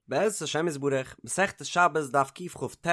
בעזרת השם יתברך, מסכת שבת דף קכ"ט,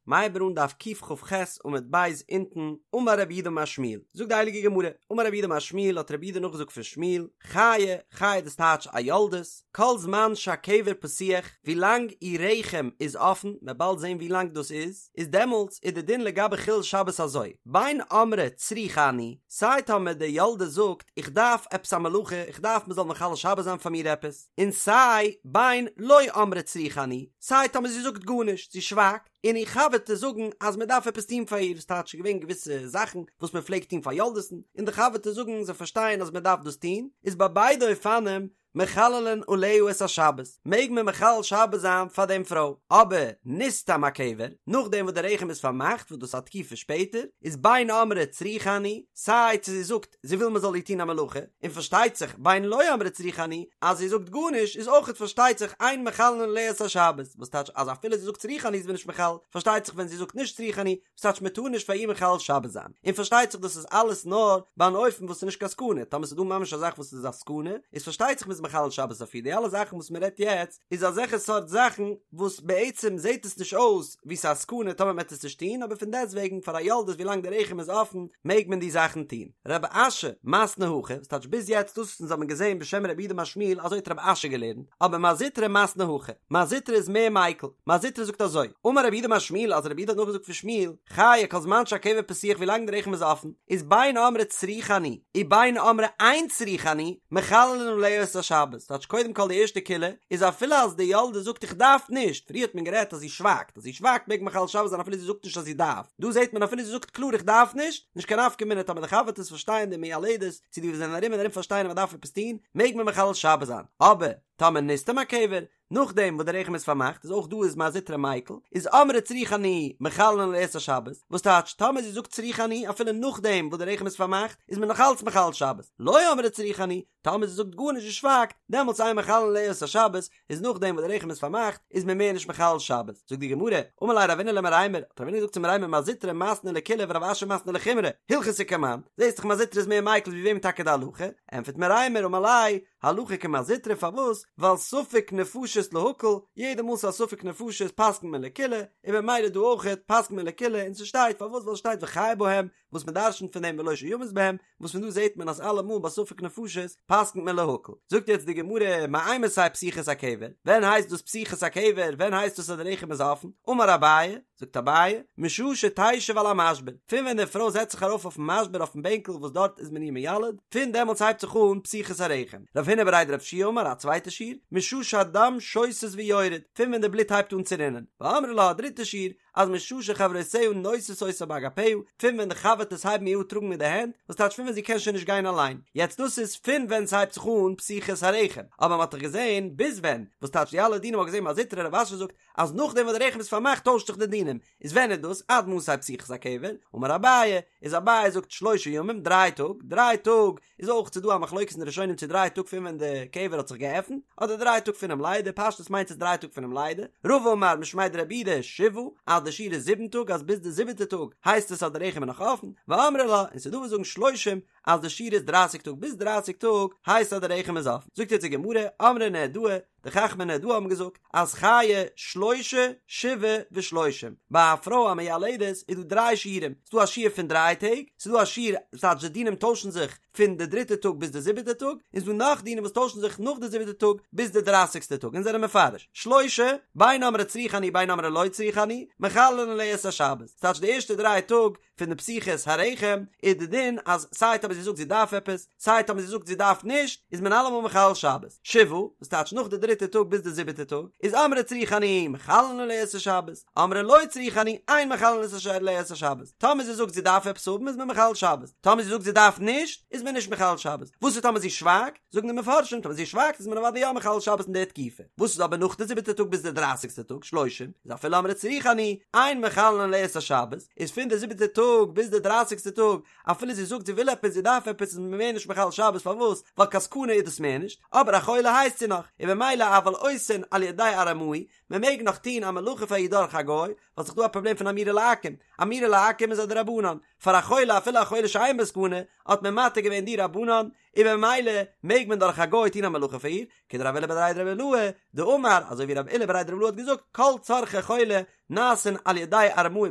מ'הייבט אן דף קכ"ח עמוד ב' אונטן, אמר רב יהודה אמר שמואל, זאגט די הייליגע גמרא, אמר רב יהודה אמר שמואל האט רב יהודה נאכגעזאגט פון שמואל, חיה, חיה דאס טייטש א יולדת, כל זמן שהקבר פתוח, ווי לאנג איר רחם איז אפן, מ'וועט באלד זען ווי לאנג דאס איז, איז דעמאלטס איז די דין לגבי חילול שבת אזוי, בין אמרה צריכה אני, סיי טאמער די יולדת זאגט איך דארף עפעס א מלאכה, איך דארף מ'זאל מחלל שבת זיין פאר מיר עפעס, און סיי בין לא אמרה צריכה אני, סיי טאמער זי זאגט גארנישט, זי שווייגט, און איר חבר'טעס זאגן אז מען דארף עפעס טון פאר איר, ס'טייטש ס'איז געווען געוויסע זאכן וואס מען פלעגט טון פאר יולדת'ן, און די חבר'טעס זאגן זיי פארשטייען אז מען דארף דאס טון, איז ביי ביידע אופנים מחללין עליה את השבת, מעג מען מחלל שבת זיין פאר דעם פרוי, אבער נסתם הקבר, נאכדעם וואס די רחם איז פארמאכט וואס דאס איז א תקופה שפעטער, איז בין אמרה צריכה אני, סיי צו זי זאגט זי וויל מען זאל איר טון א מלאכה, און פארשטייט זיך בין לא אמרה צריכה אני, אז זי זאגט גארנישט איז אויכעט פארשטייט זיך אין מחללין עליה את השבת, וואס טייטש אז אפילו זי זאגט צריכה אני איז מען נישט מחלל, פארשטייט זיך ווען זי זאגט נישט צריכה אני, וואס טייטש מען טאר נישט פאר איר מחלל שבת זיין, און פארשטייט זיך דאס איז אלעס נאר ביי אן אופן וואס איז נישט קיין סכנה, טאמער ס'איז דא ממש א זאך וואס איז א סכנה, איז פארשטייט זיך מ'איז מחלל שבת אויף איר, די אלע זאכן וואס מ'רעדט יעצט איז אזעלכע סארט זאכן וואס בעצם זעט עס נישט אויס ווי ס'איז א סכנה טאמער מ'עט עס נישט טון, אבער פון דעסטוועגן פאר א יולדת ווילאנג די רחם איז אפן מעג מען די זאכן טון. רב אשי מתני הכי, וואס טייטש ביז יעצט דאס וואס אונז האבן געזען בשם רב יהודה אמר שמואל אזוי האט רב אשי געלערנט, אבער מר זוטרא מתני הכי, מר זוטרא איז מער מיקל, מר זוטרא זאגט אזוי, אמר רב יהודה אמר שמואל אז רב יהודה האט נאכגעזאגט פון שמואל, חיה כל זמן שהקבר פתוח ווילאנג די רחם איז אפן, איז בין אמרה צריכה אני, ובין אמרה אין צריכה אני, מחללין עליה את השבת, טייטש קודם כל די ערשטע קולא איז אפילו אז די יולדת זאגט איך דארף נישט, פריער האט מען גערעדט אז זי שווייגט, אז זי שווייגט מעג מען מחלל שבת זיין אפילו זי זאגט נישט אז זי דארף, דא זעט מען אפילו זי זאגט קלאר איך דארף נישט, נישט קיין נפקא מינה טאמער די חבר'טעס פארשטייען די מיילדת, צו די וואס זענען ארום און ארום פארשטייען אז מען דארף עפעס טון, מעג מען מחלל שבת זיין, אבער טאמער נסתם הקבר, נאכדעם וואס די רחם איז פארמאכט איז אויך דא איז מר זוטרא מיקל, איז אמרה צריכה אני מחללין עליה את השבת, וואס טייטש טאמער זי זאגט צריכה אני אפילו נאכדעם וואס די רחם איז פארמאכט איז מען נאך אלץ מחלל שבת, לא אמרה צריכה אני, טאמער זי זאגט גארנישט זי שווייגט, דעמאלטס אין מחללין עליה את השבת, איז נאכדעם וואס די רחם איז פארמאכט איז מען מער נישט מחלל שבת, זאגט די גמרא, אמר ליה רבינא למרימר, האט רבינא געזאגט צו מרימר מר זוטרא מתני לקולא ורב אשי מתני לחומרא, הלכתא כמאן, זעסט דאך מר זוטרא איז מער מיקל ווי וועם טאקע די הלכה, ענטפערט מרימר אמר ליה, הלכה כמר זוטרא פארוואס? ווייל ספק נפשות להקל, יעדע מאל ס'איז א ספק נפשות פסק'נט מען לקולא, און במילא דא אויכעט פסק'נט מען לקולא, און ס'שטייט פארוואס ווייל ס'שטייט וחי בהם, וואס מ'דרש'נט פון דעם ולא שימות בהם, וואס פון דא זעט מען אז אלעמאל ביי ספק נפשות פסק'נט מען להקל. זאגט יעצט די גמרא, מאימתי פתיחת הקבר, ווען הייסט דאס פתיחת הקבר, ווען הייסט דאס אז די רחם איז אפן? אמר אביי, זאגט אביי, משעה שתשב על המשבר, פון ווען די פרוי זעצט זיך ארויף אויפן משבר אויפן בענקל וואס דארט איז מען איר מיילד, פון דעמאלטס הייבט זיך אן פתיחת הרחם. רב הונא בריה דרב יהושע אמר א צווייטע שיעור, משעה שהדם שותת ויורד, פון ווען די בלוט הייבט אן צו רינען. ואמרי לה א דריטע שיעור, אז משעה שחברותיה נושאות אותה באגפיה, פון ווען די חבר'טעס הייבן איר אן טראגן מיט די הענט, וואס טייטש פון ווען זי קען שוין נישט גיין אליין. יעצט דאס איז פון ווען ס'הייבט זיך אן פתיחת הרחם, אבער מ'האט דאך געזען ביז ווען, וואס טייטש די אלע דינים מ'האט געזען מר זוטרא רב אשי זאגט אז נאכדעם וואס די רחם איז פארמאכט טוישט זיך די דינים, איז ווען איז דאס עד מתי פתיחת הקבר? אמר אביי, איז אביי זאגט שלושה ימים, דריי טאג, דריי טאג איז אויך ס'דא א מחלוקת אין די ראשונים צו דריי טאג פון ווען די קבר האט זיך געעפנט, אדער דריי טאג פונעם לידה, פשטות מיינט עס דריי טאג פונעם לידה, רבא אמר משמיה דרב יהודה שבעה, אז די שיעור איז זיבן טאג אז ביז די זיבעטע טאג הייסט עס אז די רחם איז נאך אפן, ואמרי לה, און ס'דא וואס זאגן שלושים, אז די שיעור איז דרייסיג טאג ביז דרייסיג טאג הייסט אז די רחם איז אפן, זאגט יעצט די גמרא, אמרי נהרדעא, די חכמי נהרדעא האבן געזאגט אז חייא שלושה שבעה ושלושים, ביי א פרוי א מיילדת איז דא דריי שיעורים, ס'איז דא א שיעור פון דריי טעג, ס'איז דא א שיעור, ס'טייטש די דינים טוישן זיך פון די דריטע טאג ביז די זיבעטע טאג, און ס'איז דא נאך דינים וואס טוישן זיך נאך די זיבעטע טאג ביז די דרייסיגסטע טאג, און זענען מפרש, שלושה, בין אמרה צריכה אני בין אמרה לא צריכה אני, מחללין עליה את השבת, ס'טייטש די ערשטע דריי טאג פון די פתיחת הרחם איז די דין אז סיי טאמער זי זאגט זי דארף עפעס סיי טאמער זי זאגט זי דארף נישט איז מען אלעמאל מחלל שבת שבעה וואס טייטש נאך די דריטע טאג ביז די זיבעטע טאג איז אמרה צריכה אני מחללין עליה את השבת אמרה לא צריכה אני אין מחללין עליה את השבת טאמער זי זאגט זי דארף עפעס האבן איז מען מחלל שבת טאמער זי זאגט זי דארף נישט איז מען נישט מחלל שבת וואס איז טאמער זי שווייגט זאגן די מפרשים טאמער זי שווייגט איז מען אוודאי יא מחלל שבת אין די תקופה, וואס איז אבער נאך די זיבעטע טאג ביז די דרייסיגסטע טאג, שלושים, איז אפילו אמרה צריכה אני, אין מחללין עליה את השבת, איז פון די זיבעטע טאג ביז די דרייסיגסטע טאג, אפילו זי זאגט זי וויל עפעס זי דארף עפעס איז מען מער נישט מחלל שבת פארוואס? ווייל קיין סכנה איז דאס מער נישט, אבער א חולה הייסט זי נאך, און במילא אבל עושין על ידי ארמאי, מען מעג נאך טון א מלאכה פאר איר דורך א גוי, ווייל ס'איז דא א פראבלעם פון אמירה לעכו"ם, אמירה לעכו"ם איז א דרבנן. פאר א חולה אפילו א חולה שאין בו סכנה, האט מען מתיר געווען דרבנן, און במילא מעג מען דורך א גוי טון א מלאכה פאר איר, כדרב עולא בריה דרב אילעא דאמר, אזוי ווי רב עולא בריה דרב אילעא האט געזאגט, כל צרכי חולה נעשין על ידי ארמאי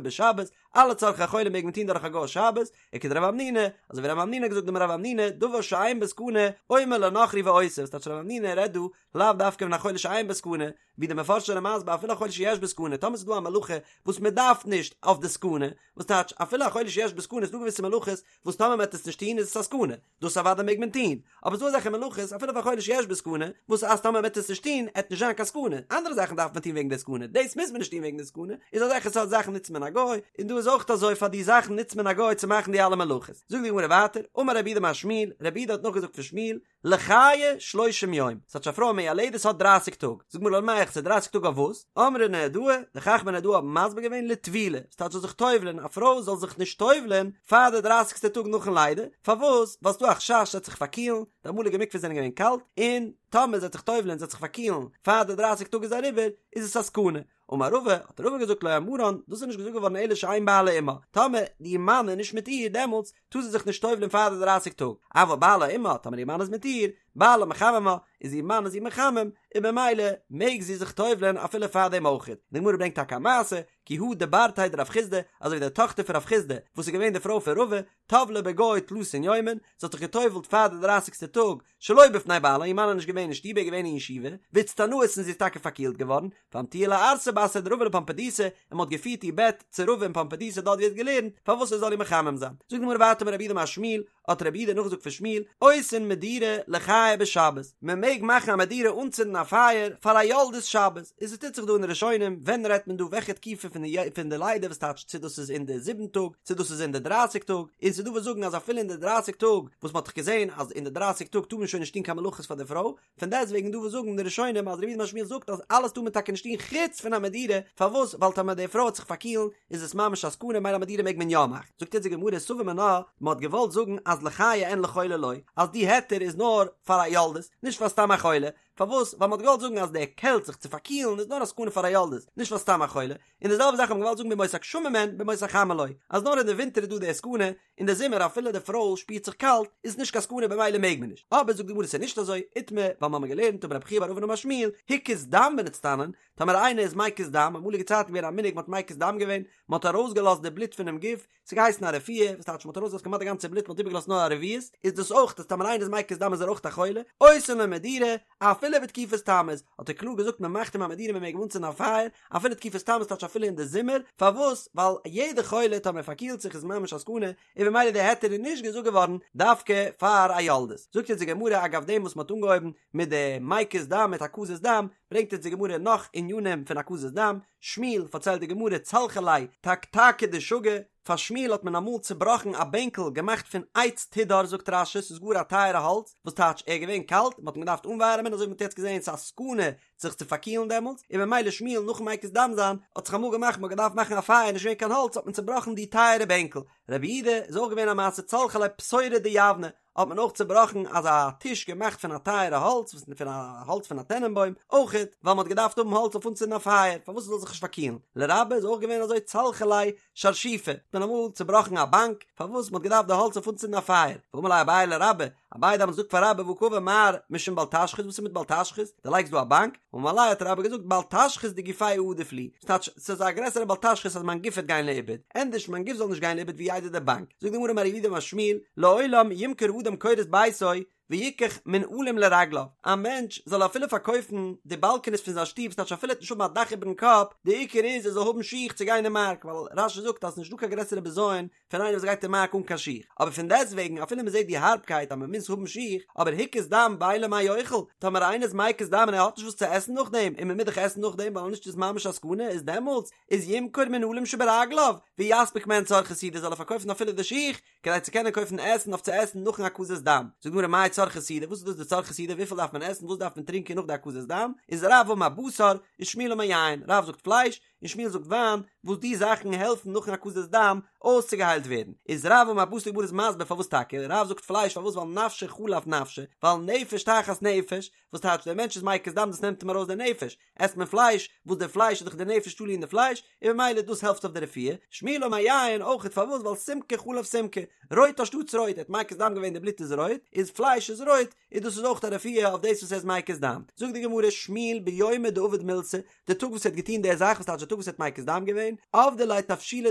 בשבת, אלע צרכי חולה מעג מען טון דורך א גוי שבת, וכדרב המנונא, אזוי ווי רב המנונא האט געזאגט דאמר רב המנונא, דבר שאין בו סכנה, אומר לנכרי ועושה, וואס טייטש רב המנונא רעדט דא לאו דווקא פון א חולה שאין בו סכנה, ווי די מפרשים זענען מסביר אפילו א חולה שיש בו סכנה, טאמער ס'איז דא א מלאכה וואס מען דארף נישט אויף די סכנה, וואס טייטש אפילו א חולה שיש בו סכנה איז דא געוויסע מלאכות וואס טאמער מען וועט עס נישט טון איז עס א סכנה, דאס אוודאי מעג מען טון, אבער ס'דא אזעלכע מלאכות אפילו פאר א חולה שיש בו סכנה, וואס אז טאמער מען וועט עס נישט טון עט נישט זיין קיין סכנה, אנדערע זאכן דארף מען טון וועגן די סכנה, דאס מוז מען נישט טון וועגן די סכנה, איז אזעלכע סארט זאכן נוצט מען א גוי, און דא איז אויך אזוי פאר די זאכן נוצט מען א גוי צו מאכן די אלע מלאכות. זאגט די גמרא ווייטער, אמר רב יהודה אמר שמואל, רב יהודה האט נאכגעזאגט פון שמואל, לחיי שלושים יום, ס'טייטש א פרוי א מיילדת האט דרייסיג טאג, זאגט די גמרא למאי ס'איז דרייסיג טאג אויף וואס? אמרי נהרדעי, די חכמי נהרדעא האבן מסביר געווען לטבילה, ס'טייטש זאל זיך טובל'ען, א פרוי זאל זיך נישט טובל'ען פאר די דרייסיגסטע טאג נאכן לידה, פארוואס? ווייל ס'דא א חשש זי וועט זיך פארקילן, די אמאליגע מקוואות זענען געווען קאלט, און טאמער זי וועט זיך טובל'ען זי וועט זיך פארקילן פאר די דרייסיג טאג איז אריבער, איז עס א סכנה. אמר רבא, האט רבא געזאגט לא אמרן, דאס איז נישט געזאגט געווארן אלא שאין בעלה עמה, טאמער די מאן איז נישט מיט איר דעמאלטס טאר זי זיך נישט טובל'ען פאר די דרייסיג טאג, אבל בעלה עמה, טאמער איר מאן איז מיט איר, בעלה מחממה, איז איר מאן איז איר מחמם, און במילא מעג זי זיך טובל'ען אפילו פאר דעם אויכעט. די גמרא ברענגט טאקע א מעשה, כי הא דברתיה דרב חסדא, אזוי ווי די טאכטער פון רב חסדא, וואס איז געווען די פרוי פון רבא, טבלה בגו תלתין יומין, זי האט זיך געטובל'ט פאר די דרייסיגסטע טאג, שלא בפני בעלה, איר מאן איז נישט געווען אין שטוב ער איז געווען אין ישיבה, ואיצטנאת און זי איז טאקע פארקילט געווארן, ואמטוה לערסא בתריה דרבא לפומבדיתא, און מען האט געפירט איר בעט צו רבא אין פומבדיתא דארט ווי ער האט געלערנט, פארוואס ער זאל איר מחמם זיין. זאגט די גמרא ווייטער אמר רב יהודה אמר שמואל, האט רב יהודה נאכגעזאגט פון שמואל, עושין מדורה לחיי בשבת, מען מעג מאכן א מדורה אנצינדן א פייער פאר א יולדת שבת, איז עס טוט זיך דא אין די ראשונים, ווען רעדט מען דא וועלכע תקופה פון די פון די לידה וואס טייטש צו דאס איז אין די זיבן טאג צו דאס איז אין די דרייסיג טאג, און ס'איז דא וואס זאגן אז אפילו אין די דרייסיג טאג, וואס מ'האט דאך געזען אז אין די דרייסיג טאג טאר מען שוין נישט טון קיין מלאכות פאר די פרוי, פון דעסט וועגן דא וואס זאגן די ראשונים אז רב יהודה אמר שמואל זאגט אז אלעס טאר מען טאקע נישט טון חוץ פון א מדורה, פארוואס? ווייל טאמער די פרוי וועט זיך פארקילן איז עס ממש א סכנה מילא א מדורה מעג מען יא מאכן. זאגט יעצט די גמרא סבור מינה, מ'האט געוואלט זאגן אז לחיי אין לחולה לא, אז די היתר איז נאר פאר א יולדת, נישט פאר סתם א חולה, פארוואס? ווייל מ'האט געוואלט זאגן אז די קעלט זיך צו פארקילן איז נאר א סכנה פאר א יולדת, נישט פאר סתם א חולה, און די זעלבע זאך האט מען געוואלט זאגן בימות הגשמים אין בימות החמה לא, אז נאר אין די ווינטער איז דא די סכנה, אין די זומער אפילו די פרוי שפירט זיך קאלט איז עס נישט קיין סכנה במילא מעג מען נישט, אבער זאגט די גמרא ס'איז נישט אזוי, איתמר, ווייל מ'האמיר געלערנט אמר רבי חייא בר אבין אמר שמואל, הקיז דם ונצטנן, טאמער איינער איז מקיז דם, אמאליגע צייטן געווען א מנהג מ'האט מקיז דם געווען, מ'האט ארויסגעלאזט די בלוט פונעם גוף, ס'האט געהייסן א רפואה, וואס טייטש מ'האט ארויסגעלאזט כמעט די גאנצע בלוט מ'האט איבערגעלאזט נאר א רביעית, איז דאס אויך אז טאמער איינער איז מקיז דם איז ער אויך א חולה, עושין לו מדורה, אפילו בתקופת תמוז, האט ער קלאר געזאגט מ'מאכט אים א מדורה מ'מעג אים אנצינדן א פייער, אפילו תקופת תמוז טייטש אפילו אין די זומער, פארוואס? ווייל יעדע חולה טאמער פארקילט זיך איז ממש א סכנה, און במילא די היתר איז נישט געזאגט געווארן דווקא פאר א יולדת. זאגט יעצט די גמרא אגב דעם וואס מ'האט אנגעהויבן מיט די מקיז דם מיט הקזת דם, ברענגט יעצט די גמרא נאך ענינים פון הקזת דם, שמואל, פארציילט די גמרא, צלחו ליה תקתקא דשגא, פאר שמואל האט מען אמאל צובראכן א בענקל געמאכט פון עץ תדהר זאגט רש"י ס'איז גאר א טייערע האלץ, וואס טייטש ער איז געווען קאלט, מ'האט אים געדארפט אנווארעמען אזוי ווי מ'האט יעצט געזען ס'איז א סכנה זיך צו פארקילן דעמאלטס, און במילא שמואל נאכן מקיז דם זיין האט זיך אמאל געמאכט מ'האט געדארפט מאכן א פייער נישט געווען קיין האלץ האט מען צובראכן די טייערע בענקל, רב יהודה איז אויך געווען א מעשה צלחו ליה פתורא דיבנא, האט מען אויך צובראכן אזא טיש געמאכט פון א טייערע האלץ וואס פון א האלץ פון א טענענבוים אויכעט ווייל מ'האט געדארפט האבן האלץ אויף אנצינדן א פייער פארוואס עס זאל זיך נישט פארקילן לרבה איז אויך געווען אזוי צלחו ליה שרשיפא האט מען אמאל צובראכן א באנק פארוואס מ'האט געדארפט די האלץ אויף אנצינדן א פייער ואמר ליה אביי לרבה אביי האט דעמאלטס געזאגט פאר רבה והא קאמר מר משום בל תשחית וואס איז מיט בל תשחית דו לייגסט דא א באנק אמר ליה האט רבה געזאגט בל תשחית דגופאי עדיף לי ס'טייטש ס'איז א גרעסערע בל תשחית אז מיין גוף וועט גיין לאיבוד ענדערש מיין גוף זאל נישט גיין לאיבוד ווי איידער די באנק זאגט די גמרא אמר רב יהודה אמר שמואל לעולם ימכור אדם קורות ביתו ויקח מנעלים לרגליו א מענטש זאל אפילו פארקויפן די באלקעניס פון זיין שטוב ס'טייטש אפילו ער וועט נישט האבן א דאך איבערן קאפ די עיקר איז ער זאל האבן שיך צו גיין אין מארק ווייל רש"י זאגט אז ס'נישט דא קיין גרעסערע בזיון פון איינער וואס גייט אין מארק אן קיין שיך, אבער פון דעסטוועגן אפילו מען זעט די הארבקייט אז מען מוז האבן שיך, אבער הקיז דם ואין לו מה יאכל, טאמער איינער איז מקיז דם און ער האט נישט וואס צו עסן נאכדעם, און מען מוז דאך עסן נאכדעם ווייל נישט איז ממש א סכנה, איז דעמאלטס איז ימכור מנעלים שברגליו, ויספיק מהן צרכי סעודה זאל ער פארקויפן אפילו די שיך, כדי צו קענען קויפן עסן אויף צו עסן נאכן הקזת דם. זאגט די גמרא מאי צרכי סעודה, וואס איז דאס די צרכי סעודה, וויפיל דארף מען עסן, וואס דארף מען טרינקען נאך די הקזת דם, איז רב אמר בשר, ושמואל אמר יין, רב זאגט פלייש, און שמואל זאגט וויין, וואס די זאכן העלפן נאכן הקזת דם אויסצוגעהיילט ווערן. איז רב אמר בתר די גמרא איז מסביר פארוואס טאקע, רב זאגט פלייש פארוואס ווייל נפשא חלף נפשא, ווייל נפש תחת נפש, וואס טייטש דער מענטש איז מקיז דם דאס נעמט אים ארויס די נפש, עסט מען פלייש, וואס די פלייש איז דאך די נפש תלוי אין די פלייש, און ממילא דאס העלפט אויף די רפואה, שמואל אמר יין אויכעט פארוואס ווייל סומקא חלף סומקא, רויט אנשטאטס רויט, ער האט מקיז דם געווען די בלוט איז רויט, איז פלייש איז רויט, איז דאס איז אויך א רפואה אויף דאס וואס ער איז מקיז דם. זאגט די גמרא שמואל ביומא דעבד מילתא, די טאג וואס ער האט געטון די זאך וואס טייטש די טאג וואס ער האט מקיז דם געווען, עבדו ליה תבשילא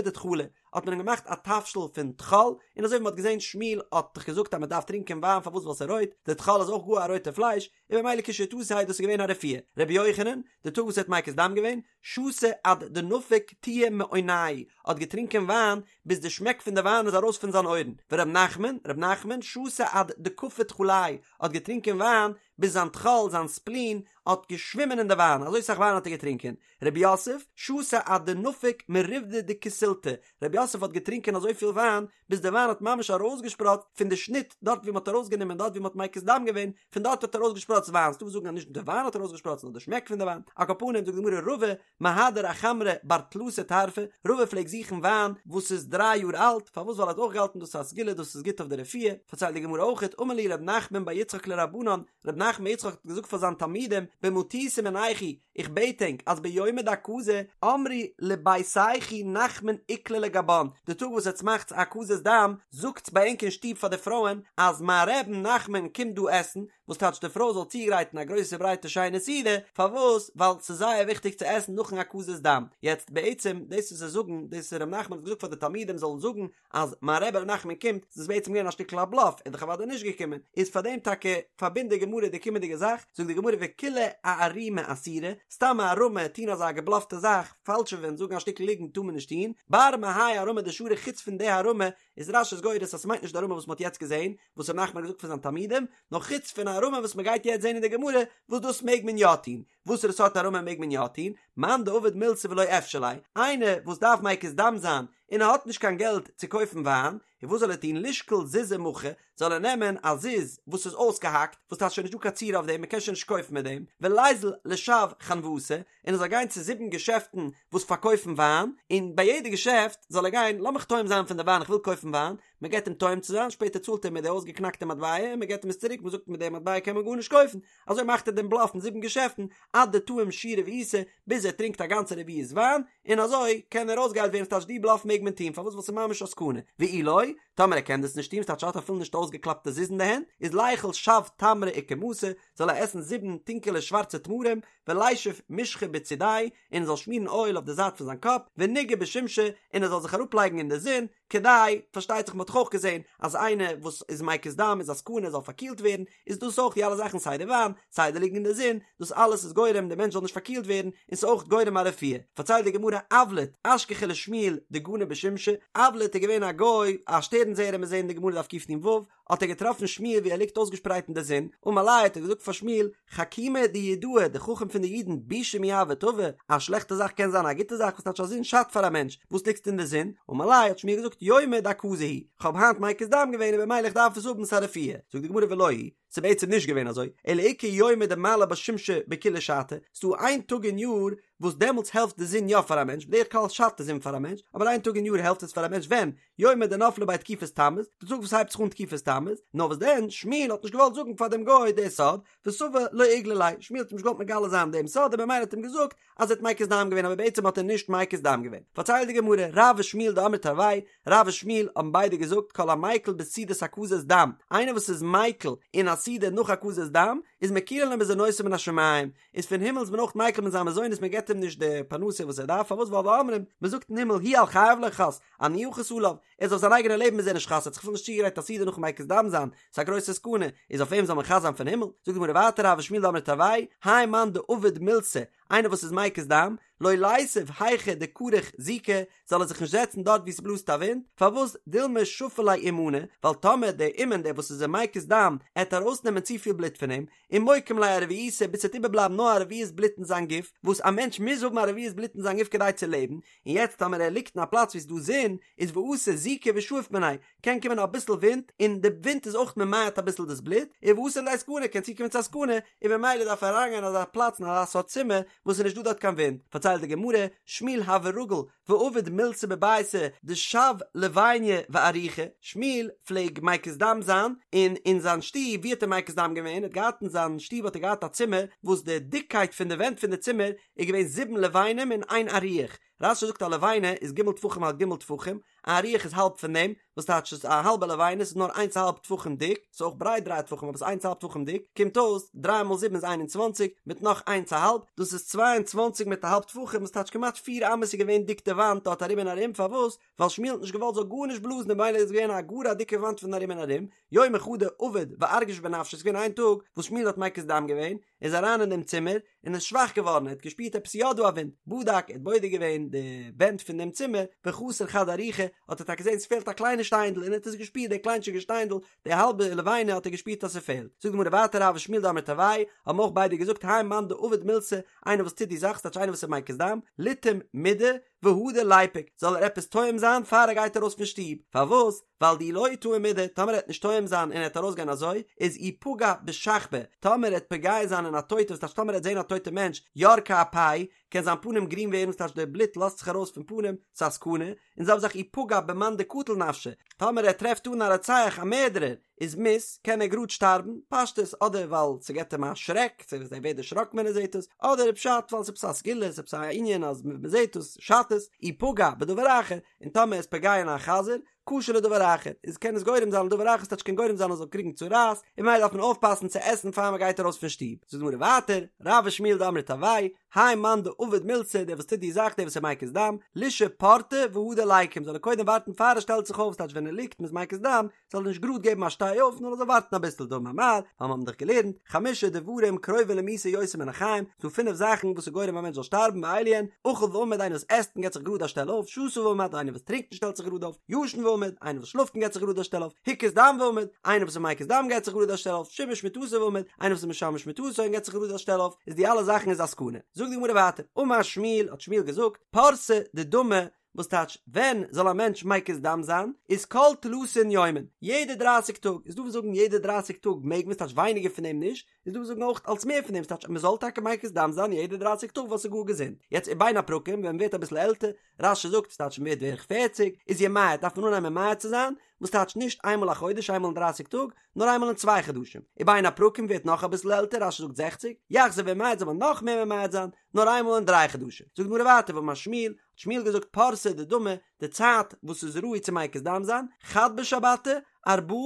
דטחלא, האט מען אים געמאכט א תבשיל פון טחול, און אזוי ווי מען האט געזען שמואל האט דאך געזאגט אז מען דארף טרינקען וויין פארוואס ווייל ס'איז רויט, די טחול איז אויך גאר א רויטע פלייש, און במילא כשתיה דאס איז געווען א רפואה. רבי יוחנן, די טאג וואס ער האט מקיז דם געווען, שתה עד דנפק טועא מאוניה, האט געטרינקען וויין ביז די שמעק פון די וויין איז ארויס פון זיין אויערן, ור' נחמן, ר' נחמן, שתה עד דקפי טחליה, האט געטרינקען וויין ביז זיין טחול, זיין ספלין, האט געשווימען אין די וויין, אזוי סאך וויין האט ער געטרינקען. רב יוסף, שתה עד דנפק מריבדא דכוסילתא, רב יוסף האט געטרינקען אזויפיל וויין, ביז די וויין האט ממש ארויסגעשפראצט פון די שניט דארט ווי מ'האט ארויסגענומען דארט ווי מ'האט מקיז דם געווען, פון דארט האט ארויסגעשפראצט וויין, ס'דא וואס זאגן אז נישט די וויין האט ארויסגעשפראצט נאר די שמעק פון די וויין, על כל פנים זאגט די גמרא רבא מהדר אחמרא בר תלתא טרפי, רבא פלעגט זוכן וויין וואס איז דריי יאר אלט, פארוואס ווייל ער האט אויך געהאלטן דאס איז א סגולה דאס איז גוט אויף די רפואה, פארציילט די גמרא אויכעט אמר להו רב נחמן בר יצחק לרבנן, רב נחמן בר יצחק האט געזאגט פאר זיין תלמידים במטותא מינייכו, איך בעט ענק אז ביומא דהקזה אמרו לביתייכו נחמן איקלע לגבן, די טאג וואס עטס מאכטס הקזת דם, זאגטס ביי ענק אין שטוב פאר די פרויען אז מיין רבי'ן נחמן קומט דא עסן, וואס טייטש די פרוי זאל צוגרייטן א גרויסע ברייטע שיינע סעודה, פארוואס? ווייל ס'איז זייער וויכטיג צו עסן נאכן הקזת דם. יעצט בעצם דאס וואס זיי זאגן, דאס ר' נחמן האט געזאגט פאר די תלמידים זאלן זאגן אז מיין רבי ר' נחמן קומט, ס'איז בעצם געווען א שטיקל א בלאף, ער איז דאך אוודאי נישט געקומען, איז פאר דעם טאקע פארבינדט די גמרא די קומענדיגע זאך, זאגט די גמרא וכולהו אערומי אסירי, סתם א הערמה, טון אזא געבלאפטע זאך, פאלשעווען, זאגן א שטיקל ליגנט טאר מען נישט טון, בר מהאי הערמה דשרי חוץ פון די הערמה, איז רש"י גורס אז ס'מיינט נישט די הערמה וואס מ'האט יעצט געזען, וואס ר' נחמן האט געזאגט פאר זיין תלמידים, נאר חוץ פון א הערמה וואס מ'גייט יעצט זען אין די גמרא, וואס דאס מעג מען יא טון. וואסערע סארט הערמה מעג מען יא טון? מאן דעביד מילתא ולא אפשר ליה, איינער וואס דארף מקיז דם זיין און ער האט נישט קיין געלט צו קויפן וויין, און וואס זאל ער טון? לישקול זוזא מכא, זאל ער נעמען א זוז וואס איז אויסגעהאקט, וואס טייטש שוין נישט דא קיין צורה אויף דעם, מען קען שוין נישט קויפן מיט דעם, וליזיל לשב חנוותא, און ער זאל גיין צו זיבן געשעפטן וואס פארקויפן וויין, און ביי יעדע געשעפט זאל ער גיין, לאמיך טועם זיין פון די וויין, איך וויל קויפן וויין, מען געבט אים טועם צו זיין, שפעטער צאלט ער מיט די אויסגעקנאקטע מטבע און מען געבט אים עס צוריק, מען זאגט מיט די מטבע קען מען גארנישט קויפן, אזוי מאכט ער דעם בלאף אין זיבן געשעפטן, עד דטעים שיעורא רביעתא, ביז ער טרינקט א גאנצע רביעית וויין, און אזוי קען ער אויסגעהיילט ווערן, ס'טייטש די בלאף מעג מען טון, פארוואס ווייל ס'איז ממש א סכנה, ואי לא, טאמער ער קען דאס נישט טון, ס'טייטש ער האט אפילו נישט אויסגעקלאפטע זוז אין די הענט, איז ליכול שב תמרי אוכמתא, זאל ער עסן זיבן טונקעלע שווארצע תמרים, ולישף משחא בצידיה, און ער זאל שמירן אויל אויף די זייט פון זיין קאפ, וניגע בשומשא, און ער זאל זיך אראפלייגן אין די זון, כדי, פארשטייט זיך מען האט דאך אויך געזען אז איינער וואס איז מקיז דם איז א סכנה ער זאל פארקילט ווערן, איז דאס אויך די אלע זאכן סיי די וויין, סיי די ליגן אין די זון, דאס אלעס איז גורם די מענטש זאל נישט פארקילט ווערן, און ס'איז אויך גורם א רפואה. פארציילט די גמרא אבלט, אשכחיה לשמואל דגני בשומשא, אבלט איז געווען א גוי, א שטערן זעער מיר זעען אין די גמרא דף קנ"ו, האט ער געטראפן שמואל ווי ער ליגט אויסגעשפרייט אין די זון, אמר ליה האט ער געזאגט פאר שמואל, חכימא דיהודאי, די חכם פון די אידן, בישא מי הוי טבא, א שלעכטע זאך קען זיין א גוטע זאך, וואס טייטש א זון שאדט פאר א מענטש, וואס ליגסטו אין די זון? אמר ליה האט שמואל געזאגט, יומא דהקזה הוא, כ'האב היינט מקיז דם געווען און במילא איך דארף עס האבן ס'א רפואה, זאגט די גמרא ולא היא, ס'איז בעצם נישט געווען אזוי, אלא איכא יומא דמעלי בה שמשא בכולה שעתא, ס'דא איין טאג אין יאר וואס דעמאלטס העלפט די זון יא פאר א מענטש, בדרך כלל שאדט די זון פאר א מענטש, אבער איין טאג אין יאר העלפט עס פאר א מענטש ווען? יומא דנפלה ביה תקופת תמוז, די טאג וואס הייבט זיך אן תקופת תמוז, נאר וואס דען, שמואל האט נישט געוואלט זאגן פאר דעם גוי די סוד, וסבר לא איגלי ליה, שמואל האט אים נישט געוואלט מגלה זיין דעם סוד און במילא האט אים געזאגט אז ער האט מקיז דם געווען אבער בעצם האט ער נישט מקיז דם געווען. פארציילט די גמרא, רב ושמואל דאמרי תרוייהו, רב און שמואל האבן ביידע געזאגט כל המיקל בסעודת הקזת דם, איינער וואס איז מיקל אין א סעודה נאך הקזת דם, איז מקילין לו מזונותיו מן השמים, איז פון הימל איז מען אויך מיקל מיט זיין מזונות מען געבט אים נישט די פרנסה וואס ער דארף פארוואס ווייל ואומרים מען זאגט אין הימל הוא על חייו לא חס אני אחוס עליו ער איז אויף זיין אייגענע לעבן איז ער נישט חס ער האט זיך אפילו נישט צוגעגרייט א סעודה נאכן מקיז דם זיין ס'איז א גרויסע סכנה איז אויף אים זאל מען חס זיין פון הימל זאגט די גמרא ווייטער רב ושמואל דאמרי תרוייהו האי מאן דעביד מילתא איינער וואס איז מקיז דם לא ליתיב היכא דכריך זיקא זאל ער זיך נישט זעצן דארט וואו ס'בלאזט א ווינט, פארוואס דילמא שפי ליה אומנא, ווייל טאמער דער אומן דער וואס איז אים מקיז דם עט ארויסנעמען צופיל בלוט פון אים, ומוקים ליה ארביעתא ביז ס'וועט איבערבלייבן נאר א רביעית בלוט אין זיין גוף, וואס א מענטש מוז האבן א רביעית בלוט אין זיין גוף כדי צו לעבן, און יעצט טאמער ער ליגט אין א פלאץ וואו ס'איז דא זון, איז ואתי זיקא ושאיף מיניה, קען קומען אביסל ווינט, און די ווינט איז אויך ממעט אביסל דאס בלוט, און ואתי לידי סכנה קען צוקומען צו א סכנה, און ממילא דארף ער אריינגיין אין אזא פלאץ אין אזא סארט צימער וואס איז נישט דא דארט קיין ווינט. פארציילט די גמרא, שמואל הוה רגיל ועביד מילתא בביתיה דשו לביניא ואריכא, שמואל פלעג מקיז דם זיין, און אין זיין שטוב, ווי האט ער מקיז דם געווען? ער האט געהאט אין זיין שטוב האט ער געהאט א צימער וואס די דיקקייט פון די ווענט פון די צימער איז געווען זיבן לבנים און איין אריח, רש"י זאגט א לבנה איז ג' טפחים על ג' טפחים, א אריח איז האלב פון דעם, וואס טייטש ס'איז א האלבע לבנה, ס'איז נאר איינס א האלב טפחים דיק, ס'איז אויך ברייט דריי טפחים אבער ס'איז איינס א האלב טפחים דיק, קומט אויס דריי מאל זיבן איז 21, מיט נאך איינס א האלב, דאס איז 22 מיט א האלב טפחים, וואס טייטש כמעט פיר אמות איז געווען דיק די וואנט דארט ארום און ארום, פארוואס? ווייל שמואל האט נישט געוואלט זאל גארנישט בלאזן און במילא איז געווען א גאר א דיקע וואנט פון ארום און ארום, יומא חדא עבד וארגיש בנפשיה, ס'איז געווען איין טאג וואס שמואל האט מקיז דם געווען, איז אריין אין דעם צימער, און איז שוואך געווארן, ער האט געשפירט עפעס יא דא א ווינט, בדק, ער האט בודק געווען די ווענט פון דעם צימער, וחסר חד אריחא, האט ער טאקע געזען ס'פעלט א קליינע שטיינדל, און ער האט עס געשפירט די קליינטשיגע שטיינדל, די האלבע לבנה האט ער געשפירט אז ס'פעלט. זאגט די גמרא ווייטער רב ושמואל דאמרי תרוייהו, האבן אויך ביידע געזאגט האי מאן דעביד מילתא, איינער וואס טוט די זאך, ס'טייטש איינער וואס איז מקיז דם, ליטעום מידי, והדר ליפוק, זאל ער עפעס טועם זיין פאר ער גייט ארויס פון שטוב, פארוואס? ווייל דאי לא טעים מידי, טאמער ער וועט נישט טועם זיין און ער וועט ארויסגיין אזוי, איז אי פגע בשכבא, טאמער ער וועט פוגע זיין אין א טויטע, וואס טייטש טאמער ער וועט זען א טויטע מענטש, ירקא אפיה, קען זיין פנים גרין ווערן, וואס טייטש די בלוט לאזט זיך ארויס פון פנים, ס'איז א סכנה, און זעלבע זאך אי פגע במאן דקטיל נפשיה, טאמער ער טרעפט אן א רוצח א מערדערער, איז מית, קען ער גראד שטארבן, פשטות, אדער ווייל ס'געט אים א שרעק, ער ווערט דערשראקן ווען ער זעט עס, אדער פשט ווייל ס'עפעס א סגולה, ס'עפעס א ענין אז מ'זעט עס, שאדט עס, אי פגע בדבר אחר, און טאמער איז פוגע אין א חזיר, קשה לדבר אחר, איז קען עס גורם זיין לדבר אחר, ס'טייטש קען גורם זיין ער זאל קריגן צרעת, און ממילא דארף מען אויפפאסן צו עסן פאר מ'גייט ארויס פון שטוב. זאגט די גמרא ווייטער, רב ושמואל דאמרי תרוייהו, האי מאן דעביד מילתא, דער וואס טוט די זאך, דער וואס איז מקיז דם, לישהי פורתא והדר ליקום, זאל ער קודם ווארטן פאר ער שטעלט זיך אויף, ס'טייטש ווען ער ליגט מ'איז מקיז דם, זאל ער נישט גראד געבן א שטיי אויף נאר ער זאל ווארטן אביסל דאמר מר, ווייל מיר האבן דאך געלערנט, חמשה דברים קרובין למיתה יותר מן החיים, ס'דא פינף זאכן וואס איז גורם א מענטש זאל שטארבן ואלו הן, אכל ועמד איינער וואס עסט און געבט זיך גראד א שטעל אויף, שתה ועמד איינער וואס טרינקט און שטעלט זיך גראד אויף, ישן ועמד איינער וואס שלאפט און געבט זיך גראד א שטעל אויף, הקיז דם ועמד איינער וואס איז מקיז דם געבט זיך גראד א שטעל אויף, שימש מטתו ועמד איינער וואס איז משמש מטתו און געבט זיך גראד א שטעל אויף, איז די אלע זאכן איז א סכנה. זאגט די גמרא ווייטער, אמר שמואל האט שמואל געזאגט, פורסא דדמא וואס טייטש ווען זאל א מענטש מקיז דם זיין איז כל תלתין יומין יעדע דרייסיג טאג איז דא וואס זאגן יעדע דרייסיג טאג מעג מען ס'טייטש ווייניגער פון דעם נישט איז דא וואס זאגן אויך אלס מער פון דעם ס'טייטש אז מ'זאל טאקע מקיז דם זיין יעדע דרייסיג טאג ווייל ס'איז גאר געזונט יעצט ובין הפרקים ווען מ'ווערט אביסל עלטער רש"י זאגט ס'טייטש מ'ווערט בערך פערציג איז ימעט דארף מען אנהייבן ממעט צו זיין וואס טייטש נישט איינמאל א חודש איינמאל אין דרייסיג טאג נאר איינמאל אין צוויי חדשים ובין הפרקים ווערט נאך אביסל עלטער רש"י זאגט זעכציג יחזור וימעט זאל מען נאך מער ממעט זיין נאר איינמאל אין דריי חדשים זאגט די גמרא ווייטער ואמר שמואל האט שמואל געזאגט פורסא דדמא, די צייט וואס איז ראוי צו מקיז דם זיין, חד בשבתא, ארבעה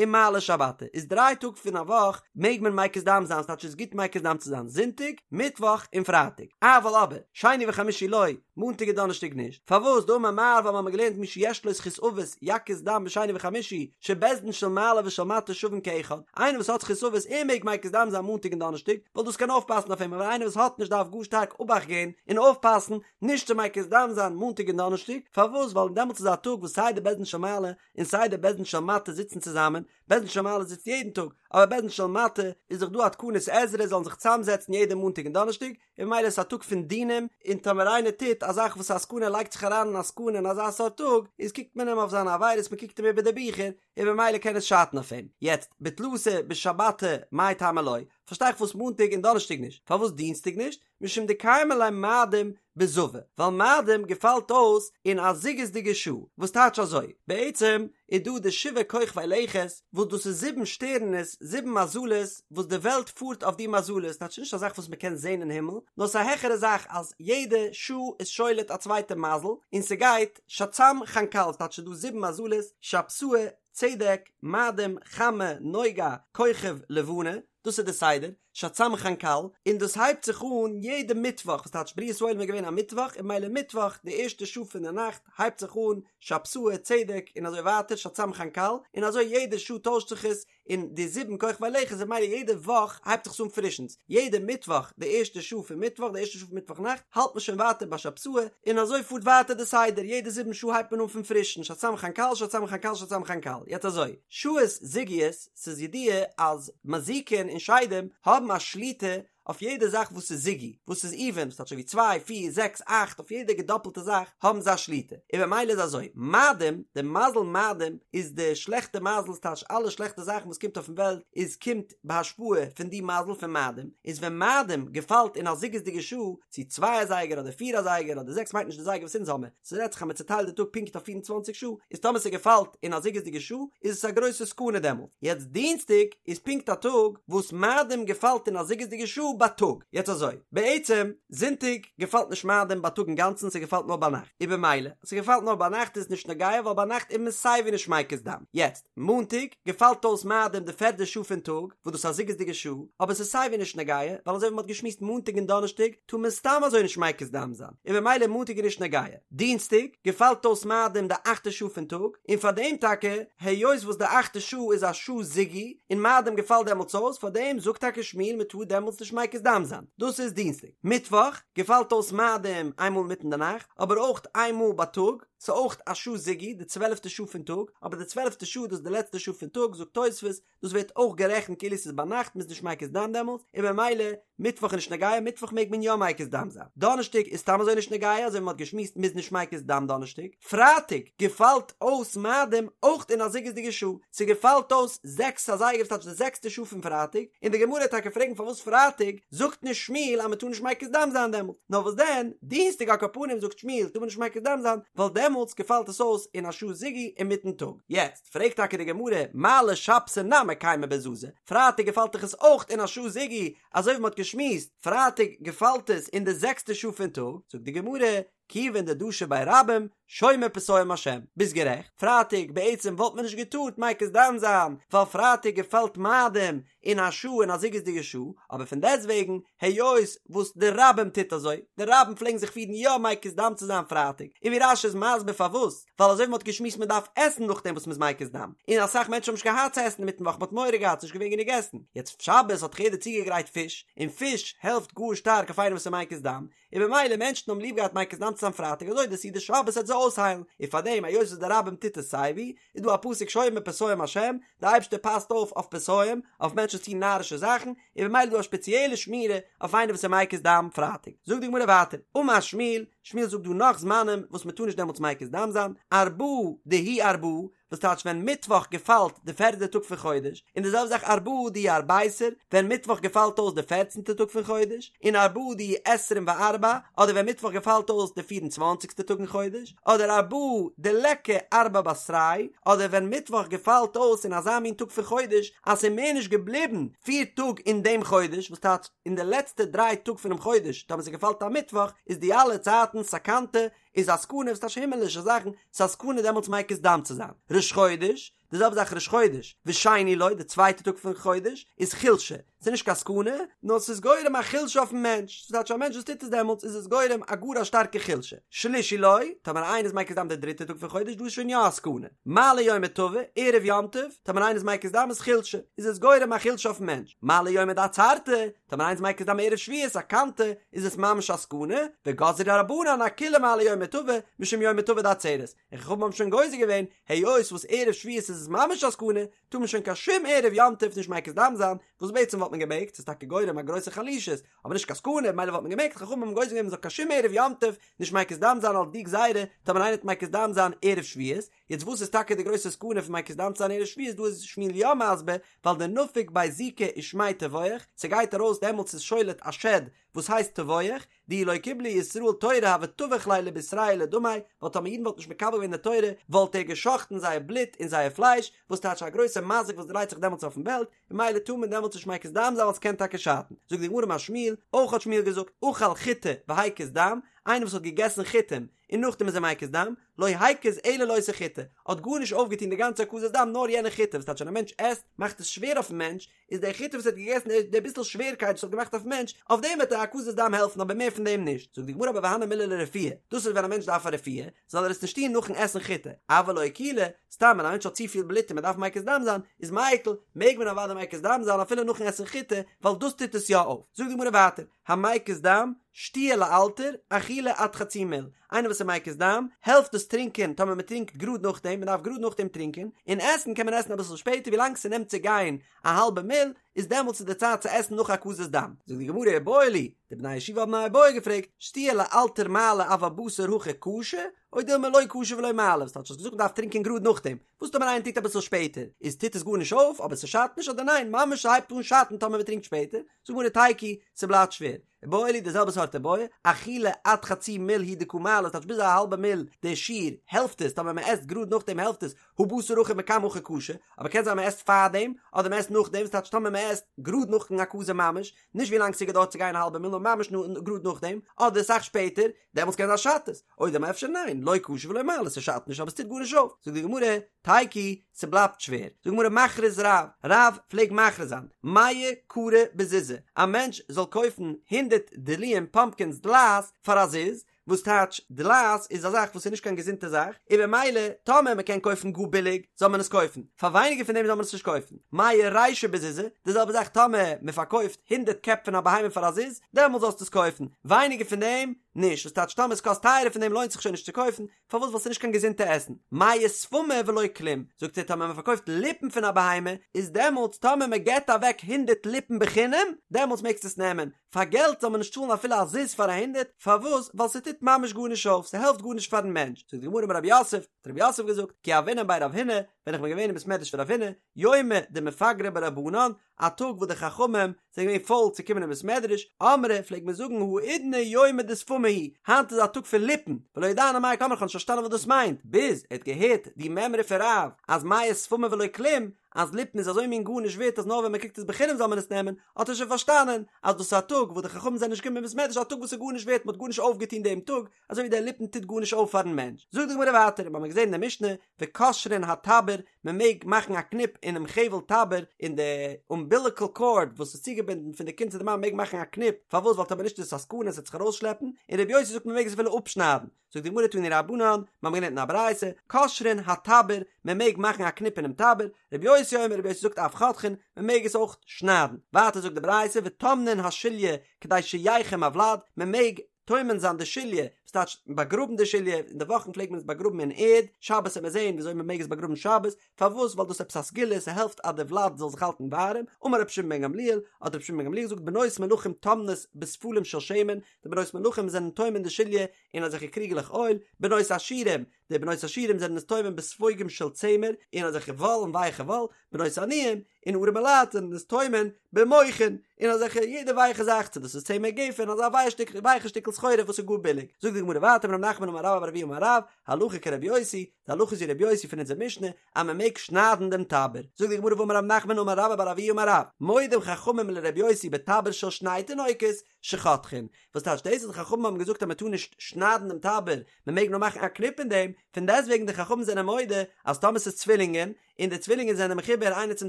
ומעלי שבתא, איז דריי טאג פון א וואך מעג מען מקיז דם זיין, ס'טייטש ס'איז גוט מקיז דם צו זיין זונטאג, מיטוואך און פרייטאג, אבל אבער, שני וחמישי לא, מאנטאג און דאנערשטאג נישט, פארוואס דאמר מר ווייל מ'האמיר געלערנט מי שיש לו זכות אבות יקיז דם בשני וחמישי, שבית דין של מעלה ושל מטה שווין כאחד, איינער וואס האט זכות אבות ער מעג מקיז דם זיין מאנטאג און דאנערשטאג, ווייל דאס קען אויפפאסן אויף אים, אבער איינער וואס האט נישט דארף גאר שטארק אבאכט געבן און אויפפאסן נישט צו מקיז דם זיין מאנטאג און דאנערשטאג, פארוואס? ווייל דעמאלטס איז א טאג וואס סיי די בית דין של מעלה און סיי די בית דין של מטה זיצן צוזאמען, בית דין של מעלה זיצט יעדן טאג, אבער בית דין של מטה איז דאך דא א תקנת עזרא זאלן זיך צוזאמזעצן יעדע מאנטאג און דאנערשטאג, און ממילא איז עס א טאג פון דינים, און טאמער איינער טוט א זאך וואס א סכנה לייגט זיך אריין אין א סכנה אין אזא סארט טאג, איז קוקט מען אים אויף זיינע עבירות, מען קוקט אים איבער די ביכער, און ממילא קען עס שאטן אויף אים. יעצט, בתלתא בשבתא מאי טעמא לא, פארשטיי איך פארוואס מאנטאג און דאנערשטאג נישט, פארוואס דינסטאג נישט? משום דקיימא ליה מאדים בזווי, ווייל מאדים געפאלט אויס אין א זוגות'דיגע שעה, וואס טייטש אזוי, בעצם איז דא די שבעה כוכבי לכת, וואס דאס איז זיבן שטערענעס, זיבן מזלות, וואס די וועלט פארט אויף די מזלות, טייטש נישט א זאך וואס מ'קען זען אין הימל, נאר ס'איז א העכערע זאך אז יעדע שעה איז שולט א צווייטע מזל, און ס'גייט שצ"ם חנכ"ל, ס'טייטש ס'איז דא זיבן מזלות, שבתאי, צדק, מאדים, חמה, נוגה, כוכב, לבנה, דאס איז די סדר, שצ"ם חנכ"ל, און דאס הייבט זיך אן יעדע מיטוואך, וואס טייטש בריאת העולם איז געווען א מיטוואך, און ממילא מיטוואך די ערשטע שעה פון די נאכט הייבט זיך אן שבתאי, צדק, און אזוי ווייטער שצ"ם חנכ"ל, און אזוי יעדע שעה טוישט זיך עס, און די זיבן כוכבי לכת און ממילא יעדע וואך הייבט זיך עס אן פרישנס, יעדע מיטוואך די ערשטע שעה פון מיטוואך, די ערשטע שעה פון מיטוואך נאכט, האלט מען שוין ווייטער ביי שבתאי, און אזוי פארט ווייטער די סדר, יעדע זיבן שעה הייבט מען אן פון פרישן, שצ"ם חנכ"ל, שצ"ם חנכ"ל, שצ"ם חנכ"ל, יעצט אזוי, שעות זוגיות, ס'איז ידוע אז מזיקין און שדים האבן א שליטה. אויף יעדע זאך וואס איז זוגי, וואס איז איווען, וואס טייטש אזוי ווי צוויי, פיר, זעקס, אכט, אויף יעדע געדאפלטע זאך האבן זיי א שליטה, און במילא איז אזוי, מאדים, די מזל מאדים איז די שלעכטע מזל, ס'טייטש אלע שלעכטע זאכן וואס קומט אויפן וועלט איז קומט בהשפעה פון די מזל פון מאדים, איז ווען מאדים געפאלט אין א זוגות'דיגע שעה, צו צוויי אזייגער אדער פיר אזייגער אדער זעקס מיינט נישט די זייגער וואס אונז האמער, ס'רעדט זיך אז מ'צוטיילט די טאג פונקט אויף 24 שעה, איז טאמער ס'געפאלט אין א זוגות'דיגע שעה איז עס א גרויסע סכנה דעמאלט. יעצט דינסטאג איז פונקט א טאג וואס מאדים געפאלט אין א זוגות'דיגע שעה בייטאג. יעצט אזוי, בעצם זונטאג געפאלט נישט מאדים בייטאג אינגאנצן ס'געפאלט נאר ביינאכט, און במילא אז ס'געפאלט נאר ביינאכט איז עס נישט נוגע ווייל ביינאכט איז מען סייווי נישט מקיז דם. יעצט מאנטאג געפאלט אויס מאדים די פערדע שעה פון טאג, וואס דאס איז א זוגות'דיגע שעה, אבער ס'איז סייווי נישט נוגע, ווייל אזוי ווי מ'האט געשמועסט מאנטאג און דאנערשטאג טאר מען סתם אזוי נישט מקיז דם זיין, און במילא מאנטאג איז נישט נוגע. דינסטאג געפאלט אויס מאדים די אכטע שעה פון טאג, און פאר דעם טאקע, היות וואס די אכטע שעה איז א שעה זוגי, און מאדים געפאלט דעמאלטס אויס, פאר דעם זאגט טאקע שמואל מען טאר דעמאלטס נישט מקיז דם זיין. דאס איז דינסטאג. מיטוואך געפאלט אויס מאדים איינמאל אינמיטן די נאכט, אבער אויך איינמאל בייטאג, ס'איז אויך א שעה זוגי, די צוועלפטע שעה פון טאג, אבער די צוועלפטע שעה דאס איז די לעצטע שעה פון טאג, זאגט תוספות, דאס ווערט אויך גערעכנט כאילו ס'איז ביינאכט, מ'איז נישט מקיז דם דעמאלטס, און במילא מיטוואך איז נישט נוגע, מיטוואך מעג מען יא מקיז דם זיין. דאנערשטאג איז סתם אזוי נישט נוגע, אזוי ווי מ'האט געשמועסט מ'איז נישט מקיז דם דאנערשטאג. פרייטאג געפאלט אויס מאדים אויך אין א זוגות'דיגע שעה, ס'געפאלט אויס זעקס אזייגער ס'טייטש די זעקסטע שעה פון פרייטאג, און די גמרא וועט טאקע פרעגן פארוואס פרייטאג זאגט נישט שמואל אז מ'טאר נישט מקיז דם זיין דעמאלט, נאר וואס דען דינסטאג על כל פנים זאגט שמואל טאר מען נישט מקיז דם זיין ווייל דעמאלטס געפאלט עס אויס אין א שעה זוגי אינמיטן טאג. יעצט פרעגט טאקע די גמרא, מעלי שבתא נמי קיימא בזזא, פרייטאג געפאלט דאך עס אויך אין א שעה זוגי, אזוי ווי מ'האט געשמועסט, פרייטאג געפאלט עס אין די זעקסטע שעה פון טאג, זאגט די גמרא, כיוון דדשו ביה רבים, שומר פתאים השם, ביסט גערעכט, פרייטאג בעצם וואלט מען נישט געטארט מקיז דם זיין, ווייל פרייטאג געפאלט מאדים אין א שעה אין א זוגות'דיגע שעה, אבער פון דעסטוועגן, היות וואס די רבים טוט אזוי, די רבים פלעגן זיך פירן יא מקיז דם צו זיין פרייטאג, און ווי רש"י איז מסביר פארוואס, ווייל אזוי ווי מ'האט געשמועסט מ'דארף עסן נאכדעם וואס מ'איז מקיז דם, און אסאך מענטשן האבן נישט געהאט צו עסן אינמיטן וואך מ'האט מורא געהאט ס'נישט געווען גענוג עסן, יעצט שבת האט דאך יעדער צוגעגרייט פיש, און פיש העלפט גאר שטארק אויף איינער וואס איז מקיז דם, און במילא מענטשן האבן ליב געהאט מקיז דם צו זיין פרייטאג אזוי די סעודת שבת וועט זיי אויסהיילן, און פארדעם היות וואס די רבים טוט עס סייווי, איז דא א פסוק שומר פתאים השם, די אייבערשטער פאסט אויף אויף פתאים, אויף מענטשן וואס טוען נארישע זאכן, און במילא איז דא א שפעציעלע שמירה אויף איינער וואס איז מקיז דם פרייטאג. זאגט די גמרא ווייטער, אמר שמואל, שמואל זאגט דא נאך זמנים וואס מען טאר נישט דעמאלטס מקיז דם זיין, ארבעה דהוא ארבעה, וואס טייטש ווען מיטוואך געפאלט די פערדע טאג פון חודש, און די זעלבע זאך ארבעה דהוא ארביסר, ווען מיטוואך געפאלט אויס די פערצנטע טאג פון חודש, און ארבעה דהוא עשרים וארבע, אדער ווען מיטוואך געפאלט אויס די פיר און צוואנציגסטע טאג אין חודש, אדער ארבעה דליכא ארבע בתרייהו, אדער ווען מיטוואך געפאלט אויס אין אזא מין טאג פון חודש אז ס'איז מער נישט געבליבן פיר טאג אין דעם חודש, וואס טייטש אין די לעצטע דריי טאג פונעם חודש, טאמער ס'געפאלט א מיטוואך, איז די אלע צייטן סכנתא, איז א סכנה וואס טייטש הימעלישע זאכן, ס'איז א סכנה דעמאלטס מקיז דם צו זיין. ראש חודש, די זעלבע זאך ראש חודש, ושני לו, די צווייטע טאג פון חודש, איז חולשה, ס'איז נישט קיין סכנה, נאר ס'איז גורם א חולשה אויפן מענטש, ס'טייטש א מענטש וואס טוט עס דעמאלטס איז עס גורם א גאר א שטארקע חולשה. שלישי לו, טאמער איינער איז מקיז דם די דריטע טאג פון חודש, דא איז שוין יא א סכנה. מעלי יומא טבא, ערב יום טוב, טאמער איינער איז מקיז דם איז חולשה, איז עס גורם א חולשה אויפן מענטש. מעלי יומא דעצרתא, טאמער איינער איז מקיז דם ערב שבועות סכנתא, איז עס ממש א סכנה, וגזרו רבנן אכולהו מעלי יומא טבא, משום יומא טבא דעצרת, און חכמים האבן שוין גוזר געווען, היות וואס ערב שבועות איז עס ממש א סכנה, טאר מען שוין קיין שום ערב יום טוב נישט מקיז דם זיין, וואס בעצם וואלט מען געמעגט, ס'איז טאקע גורם א גרויסע חלישות, אבער נישט קיין סכנה, ממילא וואלט מען געמעגט, חכמים האבן גוזר געווען מען זאל קיין שום ערב יום טוב נישט מקיז דם זיין אלס די גזירה, טאמער איינער וועט מקיז דם זיין ערב שבועות, יעצט וואס איז טאקע די גרויסע סכנה פון מקיז דם צו זיין ערב שבועות דא איז שמואל יא מסביר ווייל דנפיק ביה זיקא ושמיה טבוח ס'גייט ארויס דעמאלטס איז שולט א שד וואס הייסט טבוח דאי לא קיבלו ישראל תורה הוה טבח להו לבשריה ולדמיה ווייל טאמער אידן וואלטן נישט מקבל געווען די תורה וואלט ער גע'שחט'ן זייער בלוט און זייער פלייש וואס טייטש א גרויסע מזיק וואס דרייט זיך דעמאלטס אויפן וועלט ממילא טאר מען דעמאלטס נישט מקיז דם זיין ווייל ס'קען טאקע שאטן זאגט די גמרא אמר שמואל אויך האט שמואל געזאגט אכל חיטי והקיז דם איינער וואס האט געגעסן חיטים און נאכדעם איז ער מקיז דם, לא הקיז אלא לאותה חיטה, האט גארנישט אויפגעטון די גאנצע הקזת דם נאר יענע חיטה, וואס טייטש ווען א מענטש עסט מאכט עס שווער אויפן מענטש, איז די חיטה וואס ער האט געגעסן די ביסל שווערקייט וואס האט געמאכט אויפן מענטש, אויף דעם וועט די הקזת דם העלפן אבער מער פון דעם נישט, זאגט די גמרא אבער והני מילי לרפואה, דאס איז ווען א מענטש דארף א רפואה, זאל ער עס נישט טון נאכן עסן חיטה, אבל לאקולי, סתם ווען א מענטש האט צופיל בלוט און מען דארף מקיז דם זיין, איז מיקל, מעג מען אוודאי מקיז דם זיין אפילו נאכן עסן חיטה, ווייל דאס טוט עס יא אויף, זאגט די גמרא ווייטער, המקיז דם. שתיה לאלתר, אכילה עד חצי מיל, איינער וואס איז מקיז דם, העלפט דאס טרינקען טאמער מען טרינקט גראד נאכדעם, מען דארף גראד נאכדעם טרינקען, און עסן קען מען עסן אביסל שפעטער ווילאנג ס'נעמט צו גיין א האלבע מיל, איז דעמאלטס איז די צייט צו עסן נאך הקזת דם. זאגט די גמרא איבעיא להו, די בני הישיבה האבן א איבעיא געפרעגט, שתיה לאלתר מעלי אבל בתר הכי קשה, או דילמא לא קשה ולא מעלי, וואס טייטש האסט געזאגט מען דארף טרינקען גראד נאכדעם, וואס טאמער איינער טרינקט אביסל שפעטער, איז טוט עס גארנישט אויף, אבער ס'שאדט נישט אדער ניין, ממש ס'הייבט אן שאטן טאמער מ'טרינקט שפעטער, זאגט די גמרא תיקו, ס'בלייבט שווער. איבעיא להו די זעלבע סארט איבעיא, אכילה עד חצי מיל הוא דקא מעלי, ס'טייטש ביז א האלבע מיל די שיעור, העלפט עס, טאמער מ'עסט גראד נאכדעם העלפט עס, הא בתר הכי מקמי הכי קשה, אבער קען זיין מ'עסט פארדעם, אדער מ'עסט נאכדעם, ס'טייטש טאמער מ'עסט גראד נאכן הקזה ממש, נישט ווי לאנג ס'געדויערט צו גיין א האלבע מיל נאר ממש גראד נאכדעם, אדער אסאך שפעטער, דעמאלטס קען זיין שאדט עס, או דילמא אפשר ניין, לא קשה ולא מעלי, ס'שאדט נישט אבער ס'טוט גארנישט אויף, זאגט די גמרא, תיקו, ס'בלייבט שווער, זאגט די גמרא מכריז רב, רב פלעג מכריז זיין, מאה כרי בזוזא, א מענטש זאל קויפן הונדרעט דלועים פאמפקינס דלעת פאר א זוז, וואס טייטש דלעת איז א זאך וואס איז נישט קיין געזונטע זאך, און במילא טאמער מען קען קויפן גאר ביליג זאל מען עס קויפן, פאר ווייניגער פון דעם זאל מען עס נישט קויפן. מאה רישי בזוזא, די זעלבע זאך טאמער מען פארקויפט הונדרעט קעפ פון א בהמה פאר א זוז, דעמאלט זאלסטו עס קויפן, ווייניגער פון דעם נישט, וואס טייטש טאמער עס קאסט טייערער פון דעם לוינט זיך שוין נישט צו קויפן, פארוואס ווייל ס'איז נישט קיין געזונטע עסן. מאה שפמי ולא כלום, זאגט ער טאמער מען פארקויפט ליפן פון א בהמה, איז דעמאלטס טאמער מען געבט אוועק הונדרעט ליפן בחינם, דעמאלטס מעגסטו עס נעמען, פאר געלט זאל מען נישט צאלן אפילו א זוז פאר א הונדרעט, פארוואס? ווייל ס'טוט ממש גארנישט אויף, ס'העלפט גארנישט פארן מענטש. זאגט די גמרא אמר רב יוסף, האט רב יוסף געזאגט, כי הוינן בי רב הונא, ווען איך בין געווען אין בית מדרש פון רב הונא, יומא דמפגרי ביה רבנן, א טאג וואס די חכמים זענען געווען פויל צו קומען אין בית מדרש, אמרי, פלעגט מען זאגן האידנא יומא דשפמי הוא, היינט איז א טאג פון ליפן, ולא ידענא מאי קאמרי, איך האב נישט פארשטאנען וואס דאס מיינט, ביז ער האט געהערט די מימרא פון רב אז מאה שפמי ולא כלום, אז ליפן איז אזוי מין גארנישט ווערט אז נאר ווען מען קריגט עס בחינם זאל מען עס נעמען, האט ער שוין פארשטאנען אז דאס איז א טאג וואס די חכמים זענען נישט געקומען אין בית מדרש א טאג וואס איז גארנישט ווערט מען האט גארנישט אויפגעטון דעם טאג, אזוי ווי דער ליפן טוט גארנישט אויף פארן מענטש. זאגט די גמרא ווייטער, מיר האבן געזען אין די משנה, וקושרין הטבור, מען מעג מאכן א קניפ אינעם חבל טבור, אין די אומביליקל קארד וואס איז צוגעבינדן פון די קינד צו די מאמע מעג מען מאכן א קניפ, פארוואס ווייל טאמער נישט איז עס א סכנה עס וועט זיך ארויסשלעפן, און רבי יוסי זאגט מען מעג עס אפילו אפשניידן. זאגט די גמרא תנו רבנן, מיר האבן געלערנט אין א ברייתא, קושרין הטבור, מען מעג מאכן א קניפ אינעם טבור, רבי יוסי אומר רבי יוסי זאגט אף חותכין, מען מעג עס אויך שניידן. ווייטער זאגט די ברייתא וטומנין השליה כדי שיחם הוולד, מען מעג טומן זיין די שליה, וואס טייטש באגראבן די שליה, אין די וואכן פלעגט מען עס באגראבן אין ערד, שבת וועט מען זען וויאזוי מען מעג עס באגראבן שבת, פארוואס ווייל דאס איז עפעס א סגולה, ס'העלפט אז די וולד זאל זיך האלטן ווארעם, אמר רבי שמעון בן גמליאל, האט רבי שמעון בן גמליאל געזאגט בנות מלכים טומנות בספלים של שמן, די בנות מלכים זענען טומן די שליה אין אזעלכע קריגעלעך אויל, בנות עשירים, די בנות עשירים זענען עס טומן בספוגים של צמר, אין אזעלכע וואל און ווייכע וואל, בנות עניים, און ארעמע לייט זענען עס טומן במוכין, אין אזעלכע יעדע ווייכע זאך, צו דאס איז צמר גפן, אזא ווייך שטיקל ווייכע שטיקל סחורה וואס איז גאר ביליג. זאגט די גמרא ווייטער אמר רב נחמן אמר רבה בר אבוה אמר רב, הלכה כרבי יוסי, די הלכה איז ווי רבי יוסי פון אונזער משנה, אז מען מעג שניידן דעם טבור. זאגט די גמרא והאמר רב נחמן אמר רבה בר אבוה אמר רב, מודים חכמים לרבי יוסי בטבור של שני תינוקות, שחותכין, וואס טייטש דאס אז די חכמים האבן געזאגט אז מען טאר נישט שניידן דעם טבור, מען מעג נאר מאכן א קניפ אין דעם, פון דעסטוועגן די חכמים זענען מודה אז טאמער ס'איז צווילינגען, און די צווילינגען זענען מחובר איינער צום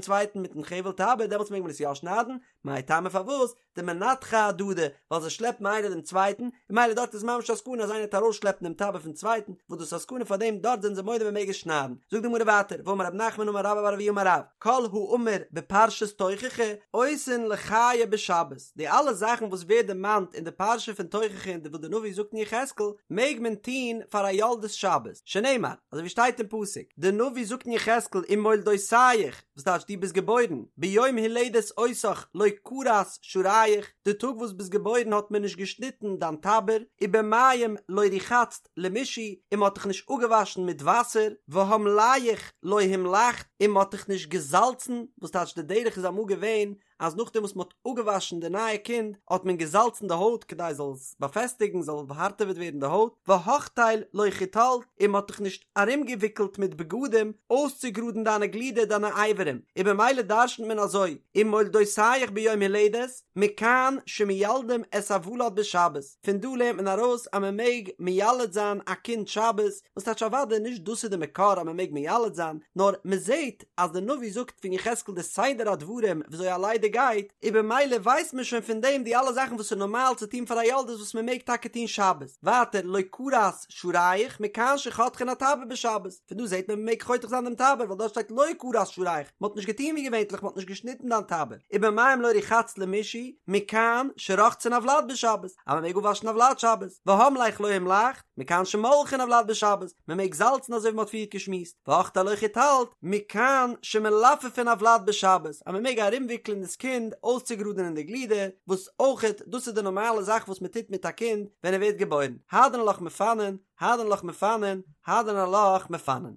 צווייטן מיטן חבל טבור, דעמאלטס מעג מען עס יא שניידן, מאי טעמא פארוואס? דמנתחי אהדדי, ווייל זיי שלעפן איינער דעם צווייטן, און ממילא דארט איז ממש א סכנה אז איינער וועט ארויסשלעפן דעם טבור פון צווייטן, וואס דאס איז א סכנה פאר דעם דארט זענען זיי מודה מען מעג עס שניידן. זאגט די גמרא ווייטער, ואמר רב נחמן אמר רבה בר אבוה אמר רב, כל האמור בפרשת תוכחה עושין לחיה בשבת, די אלע זאכן וואס ווערט דערמאנט אין די פרשה פון תוכחה און וואס די נביא זאגט אין יחזקאל, מעג מען טון פאר א יולדת שבת, שנאמר, אזוי ווי שטייט אין פסוק, די נביא זאגט אין יחזקאל ומולדותיך, וואס טייטש דו ביסט געבוירן, ביום הולדת אותך לא כרת שעריך, די טאג וואס ביסט געבוירן האט מען נישט געשניטן דיין טבור, ובמים לא רחצת למשעי, און מען האט דיך נישט אפגעוואשן מיט וואסער, והמליח לא המלחת, און מען האט דיך נישט געזאלצן, וואס טייטש די דרך איז אמאל געווען אז נאכדעם וואס מען האט אפגעוואשן די נייע קינד האט מען געזאלצן די הויט כדי זאל עס באפעסטיגן זאל הארטעוועט ווערן די הויט, והחתל לא חתלת, און מען האט דיך נישט ארומגעוויקלט מיט בגדים אויסצוגראדן דיינע גלידער דיינע אברים, און במילא דרשנ'ט מען אזוי, ומולדותיך ביום הולדת, מכאן שמיילדים את הוולד בשבת, פון דא לערנט מען ארויס אז מען מעג מיילד זיין א קינד שבת, וואס טייטש אוודאי נישט דאס איז די מקור אז מען מעג מיילד זיין, נאר מען זעט אז די נביא זאגט פון יחזקאל די סדר הדברים וויאזוי א לידה געשעט. גייט, און במילא ווייסט מען שוין פון דעם די אלע זאכן וואס איז נארמאל צו טון פאר א יולדת וואס מען מעג טאקע טון שבת. ווייטער לא כרת שרייך מכאן שחותכין הטבור בשבת, פון דא זעט מען מען מעג חותך זיין דעם טבור ווייל דארט שטייט לא כרת שרייך, מען האט נישט געטון ווי געווענטליך מען האט נישט געשניטן דיין טבור, ובמים לא רחצת למישהו מכאן שרוחצין הוולד בשבת, אז מען מעג אפוואשן א ולד שבת, והמלך לא המלכת, מכאן שמולחין הוולד בשבת, מען מעג זאלצן אזוי ווי מען האט פריערט געשמועסט, והחטא לא חיתלת, מכאן שמלפפין הוולד בשבת, אז מען מעג ארומוויקלען דאס קינד אויסצוגראדענען די גלידער, וואס אויכעט דאס איז די נארמאלע זאך וואס מען טוט מיט א קינד ווען ער ווערט געבוירן, הדרן עלך מפנין, הדרן עלך מפנין, הדרן עלך מפנין.